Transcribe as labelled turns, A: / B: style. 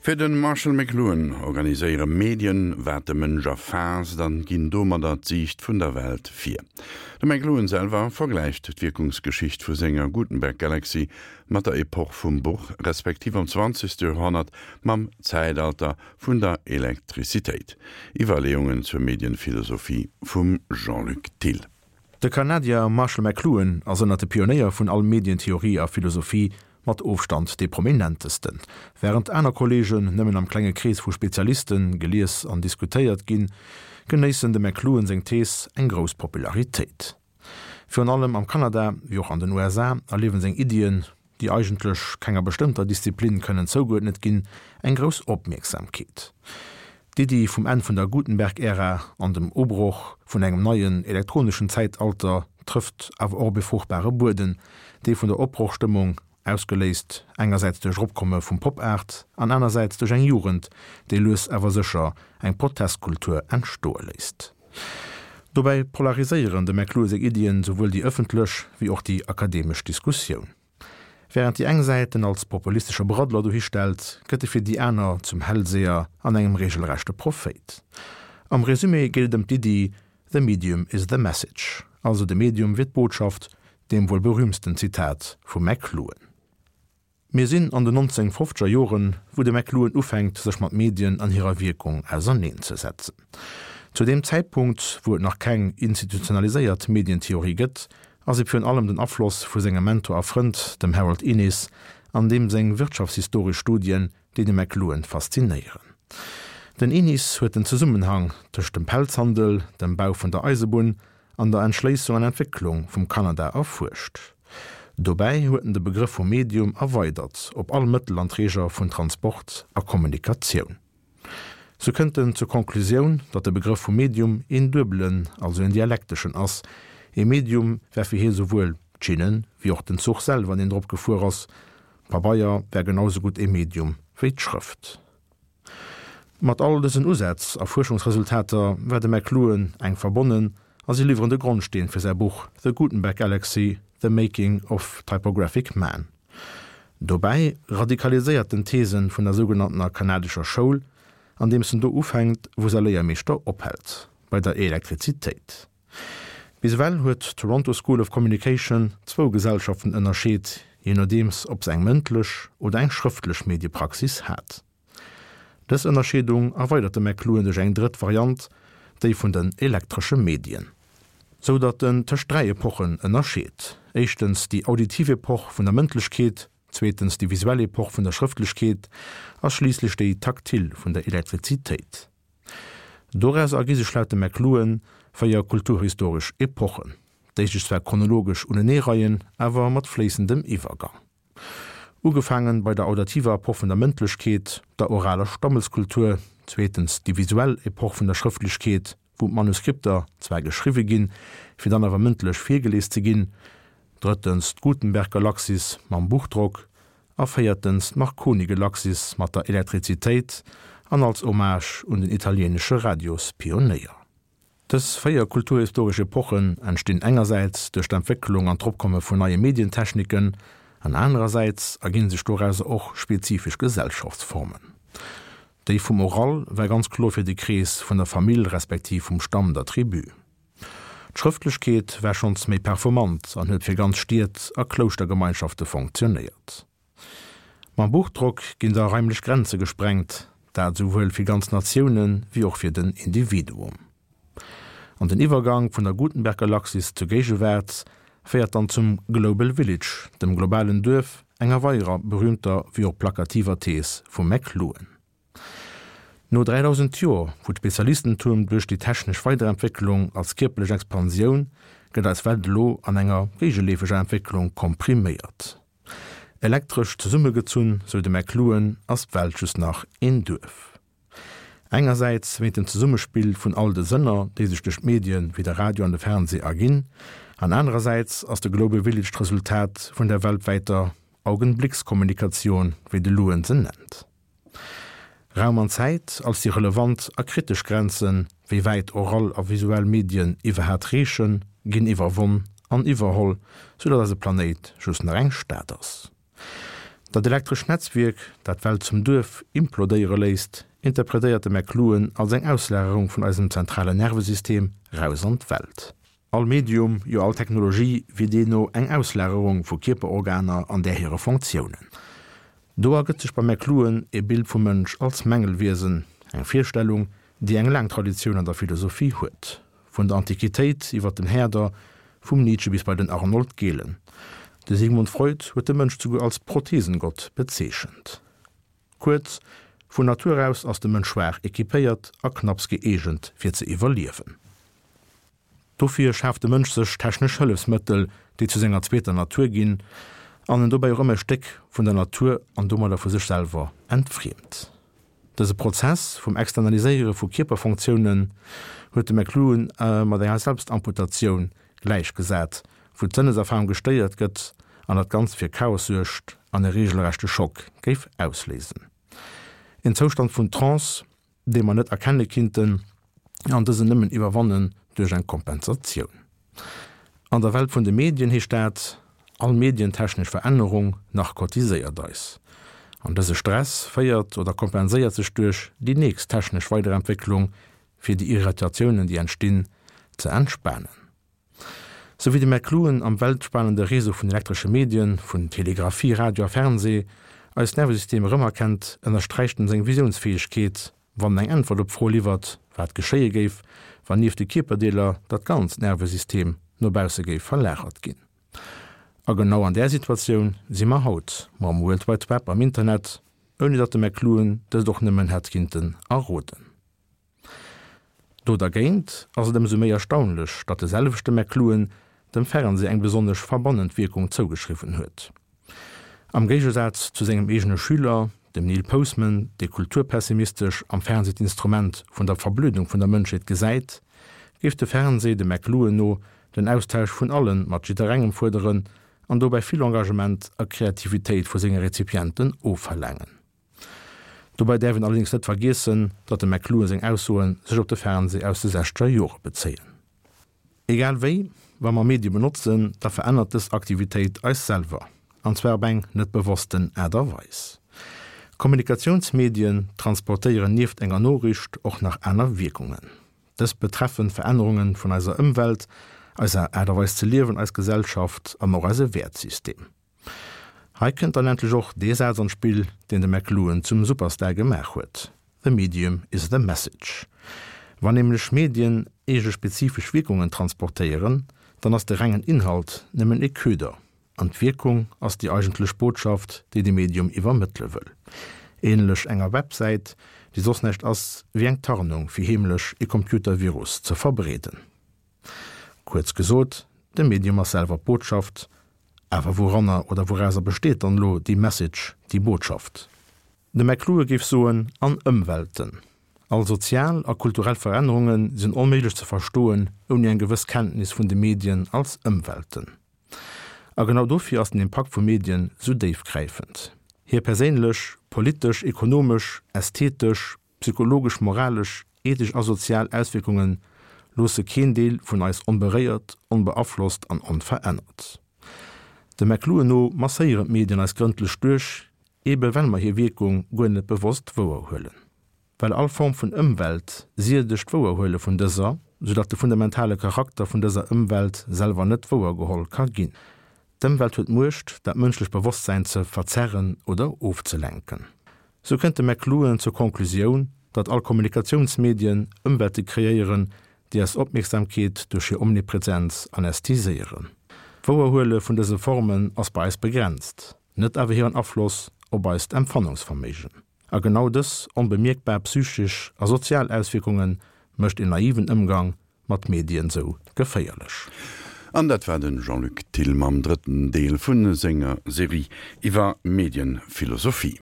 A: Fir de Marshall McLuhan organiséiere Medien, wat de Mënsch erfaasst an ginn domadder d'Siicht vun der Welt vir. De McLuhan selwer vergläicht d'Wierkungsgeschicht vu senger Gutenberg-Galaxy mat der Epoch vum Buch, respektiv am zwanzegste Joerhonnert mam Zäitalter vun der Elektrizitéit. Iwwerleeungen zur Medienphilosophie vum Jean-Luc Thill.
B: De Kanadier Marshall McLuhan ass ënnert de Pionéier vun all Medientheorie a philosophie mat Ofstand dee prominentesten. Wärend aner Kolleegen nëmmen am klenge Krees vu Spezialiste gelies an diskutéiert ginn, genéissen dem McLuhan seng Thees eng grouss Popularitéit. Virun allem am Kanada, wéi och an den USA, erliewen seng Iddien, déi eigentlech kenger bestëmmter Disziplin kënnen zougeuerdnet ginn, eng grouss Opmierksamkeet. D'Iddi vum Enn vun der Gutenberg-Ära an dem Ubroch vun engem neien elektroneschen Zäitalter trëfft awer och op e fruchtbare Bueden, dee vun der Opbrochstëmmung, ausgeléist engersäits duerch Eropkomme vum Pop-Art an anersäits duerch eng Jugend, déi lues awer sécher eng Protestkultur entstoe léisst. Dobäi polariséieren dem McLuhan seng Iddien souwuel déi ëffentlech wéi och déi akademesch Diskussioun. Wärend déi eng Säit en als populistesche Braddler dohistellt, gëtt e fir déi aner zum Hellseher an engem reegelrechte Prophéit. Am Resumé geet et ëm d'Iddi The medium is the message, also de Medium wier d'Botschaft, deem wuel berühmsten Zitat vum McLuhan. Mir sinn an den 1950er Joren, wou de McLuhan ufänkt, sech mat Medien an hirer Wierkung auserneenzesetzen. Zu deem Zäitpunkt, wou et nach keng institutionaliséiert Medientheorie gëtt, ass et virun allem den Afloss vu sengem Mentor a Frënd, dem Harold Innis, an deem seng wirtschaftshistoresch Studien, déi de McLuhan faszinéieren. Den Innis huet den Zesummenhang tëscht dem Pelzhandel, dem Bau vun der Eisebunn an der Entschléissung an Entwécklung vum Kanada erfuerscht. Dobäi huet en de Begrëff vum Medium erweidert op all Mëttel an Träger vun Transport a Kommunikatioun. Sou kënnt en zur Conclusioun, datt de Begrëff vum Medium een duebelen, also een dialekteschen ass. Ee Medium wär fir hie souwuel d'Schinnen, wéi och den Zuch selwer, deen drop gefuer ass. Pabeier wär genau sou gutt ee Medium wéi d'Schrëft. Mat all dësen Usätz a Fuerschungsresultater war de McLuhan enk verbonnen a si liwweren de Grondsteen fir säi Buch The Gutenberg Galaxy, The Making of Typographic Man. Dobäi radikaliséiert en d'Theesen vun der sougenanntener kanadescher Schoul, andeems en do ufänkt, wou säi Léiermeeschter ophält, bei der Elektrizitéit. Bis ewell huet d'Toronto School of Communication zwou Gesellschaften ënnerscheet, jee nodeems ob se eng mëndlech oder eng schrëftlech Mediepraxis hat. Dës Ënnerscheedung erweidert de McLuhan duerch eng drëtt Variant, déi vun den elektresche Medien. Sou datt en tëscht 3 Epochen ënnerscheet, éischtens déi auditiv Epoch vun der Mëndlechkeet, zweetens déi visuell Epoch vun der Schrëftlechkeet a schliisslech déi taktil vun der Elektrizitéit. Doraus ergi sech laut dem McLuhan 4 kulturhistoresch Epochen, déi sech zwar chronologesch uneneereien, awer mat fléissendem Iwwergang. Ugefaangen bei der audativer Epoch vun der Mëndlechkeet, der oraler Stammeskultur, zweetens déi visuell Epoch vun der Schrëftlechkeet, wou d'Manuskripter zwar geschriwwe ginn, fir dann awer mëndlech virgelies ze ginn, drëttens d'Gutenberg-Galaxis mam Buchdrock a véiertens d'Marconi-Galaxis mat der Elektrizitéit an als Hommage un den italieenesche Radiospionéier. Dës 4 kulturhistoresch Epochen entstinn engersäits duerch d'Entwécklung an d'Ropkomme vun neie Medientechniken an anerersäits erginn sech dorauser och spezifesch Gesellschaftsformen. Déi vum Oral war ganz kloer fir de Krees vun der Famill respektiv vum Stamm, der Tribu. D'Schrëftlechkeet war schonns méi performant an huet fir ganz Stied a Klouschtergemeinschafte fonctionnéiert. Mam Buchdrock ginn da raimlech Grenze gesprengt, dat esouwuel fir ganz Natioune wéi och fir den Individuum. An den Iwwergang vun der Gutenberg-Galaxis zur Géigewaart féiert dann zum Global Village, dem globalen Duerf, enger weiderer berühmter wéi och plakativer Thees vum McLuhan. No 3000 Joer, wou d'Spezialistentum duerch déi technesch Weiderentwécklung als kierperlech Expansioun, gëtt eis Welt elo an enger géigeleefeger Entwécklung kompriméiert. Elektresch zesummegezunn, sou de McLuhan, ass d'Welt just nach een Duerf. Engersäits wéint dem Zesummespill vun all de Sënner, déi sech duerch d'Medien wéi de Radio an de Fernsee erginn, an anerersäits ass de Global Village d'Resultat vun der weltwäiter Augenblickskommunikation, wéi de Luhan se nennt. Raum an Zäit als déi relevant a kritesch Grenzen, wéi wäit oral a visuell Medien iwwerhaat reechen, ginn iwwerwonn an iwwerholl, sou datt eise Planéit just nach eng Stad ass. Dat elektrescht Netzwierk, dat d'Welt zum Duerf implodéiere léisst, interpretéiert de McLuhan als eng Auslagerung vun eisem zentralen Nervesystem raus an d'Welt. All Medium, jo all Technologie wier deemno eng Auslagerung vu Kierperorganer an där hire Fonctiounen. Do ergëtt sech beim McLuhan e Bild vum Mënsch als Mängelwiesen, eng Virstellung, déi eng laang Traditioun an der Philosophie huet, vun der Antiquitéit iwwer den Herder, vum Nietzsche bis bei den Arnold Gehlen. De Sigmund Freud huet de Mënsch souguer als Prothesengott bezeechent. Kuerz, Vun Natur aus ass de Mënsch schwaach equipéiert a knapps gëeegent fir ze iwwerliewen. Dofir schaaft de Mënsch sech technesch Hëllefsmëttel, déi zu senger zweeter Natur ginn an en dobäi och ëmmer e Stéck vun der Natur an domadder vu sech selwer entfriemt. Dëse Prozess vum Externaliséiere vu Kierperfonctiounen huet de McLuhan mat enger Selbstamputatioun gläichgesat, wou d'Sënneserfarung gestéiert gëtt an dat Ganzt fir Chaos suergt an e reegelrechte Schock géif ausléisen. En Zoustand vun Trance, dee mer net erkenne kinnten an dësen nëmmen iwwerwannen duerch eng Kompensatioun. An der Welt vun de Medien heescht dat, all medientechnesch Verännerung narkotiséiert eis. An dëse Stress féiert oder kompenséiert sech duerch déi nächst technesch Weiderentwécklung, fir déi Irritatiounen, déi entstinn, ze entspanen. Sou wéi de McLuhan am weltspanende Réseau vun elektresche Medien, vun Telegraphie, Radio a Fernseh, eist Nervesystem erëmerkennt, ënnersträicht en seng Visiounsfäegkeet, wann en eng Äntwert op d'Fro liwwert, wat geschéie géif, wann nieft de Kierperdeeler dat ganzt Nervesystem no bausse géif verlagert ginn. A genau an där Situatioun si mer haut, mam World Wide Web am Internet, ouni datt de McLuhan dëst och nëmmen hätt kinnten erroden. Do dergéint ass et ëmsou méi erstaunlech, datt de selwechte McLuhan dem Fernsee eng besonnesch verbannend Wierkung zougeschriwwen huet. Am Géigesaz zu sengem eegene Schüler, dem Neil Postman, dee kulturpessimistesch am Fernsee d'Instrument vun der Verblödung vun der Mënschheet gesäit, géif de Fernsee dem McLuhan no den Austausch vun allen mat jidderengem fuerderen an dobäi vill Engagement a Kreativitéit vu senge Rezipienten ofverlaangen. Dobäi däerf een allerdéngs net vergiessen, datt dem McLuhan seng Aussoe sech op de Fernsee aus de sechzeger Jore bezéien. Egal wéi, wa mer Medie benotzen, da verännert dës Aktivitéit eis selwer, an zwar op eng net bewossten Aart a Weis. Kommunikatiounsmedien transportéieren nieft enger Noriicht och nach aner Wierkungen. Dës betreffen Verännerunge vun eiser Ëmwelt, eiser Aart a Weis ze liewen, eis Gesellschaft an och eise Wäertsystem. Hei kënnt dann endlech och dee Saz an d'Spill, deen de McLuhan zum Superstar gemaach huet, The medium is the message. Wann nämlech Medien eege spezifesch Wierkungen transportéieren, dann ass de rengen Inhalt nëmmen e Köder, an d'Wierkung ass déi eigentlech Botschaft, déi de Medium iwwermëttele wëll. Ähnlech enger Websäit, déi soss näischt ass wéi eng Tarnung fir heemlech e Computervirus ze verbreeden. Kuerz gesot, de Medium ass selwer d'Botschaft. Awer wouranner oder wourauser besteet dann elo déi Message, déi Botschaft? De McLuhan géif soen, an Ëmwelten. All sozial a kulturell Verännerunge sinn onméiglech ze verstoen ouni eng gewëss Kenntnis vun de Medien als Ëmwelten. A genau dofir ass den Impakt vu Medien sou déifgräifend. Hir perséinlech, politesch, ekonomesch, ästhetesch, Psychologesch, moralesch, ethesch a sozial Auswierkunge loosse keen Deel vun eis onberéiert, onbeaflosst an onverännert. Dem McLuhan no masséieren d'Medien eis grëndlech duerch, ebe well mer hir Wierkung guer net bewosst wouerhuelen. Well all Form vun Ëmwelt siedegt d'Wouerhuele vun dëser, soudatt de fundamentale Charakter vun dëser Ëmwelt selwer net wouergeholl ka ginn. D'Ëmwelt huet d'Muecht, dat mënschlecht Bewosstsäin ze verzerren oder ofzelenken. Sou kënnt de McLuhan zur Conclusioun, datt all Kommunikatiounsmedien Ëmwelte kreéieren, déi eis Opmierksamkeet duerch hir Omnipresenz anästhesiéieren. D'Wouerhuele vun dëse Formen ass bei eis begrenzt, net awer hiren Afloss op eist Empfannungsverméigen. A genau dës onbemierkbar psychesch a sozial Auswierkunge mécht een naiven Ëmgang mat Medien sou geféierlech.
A: An dat war de Jean-Luc Thill mam drëtten Deel vu senger Serie iwwer Medienphilosophie.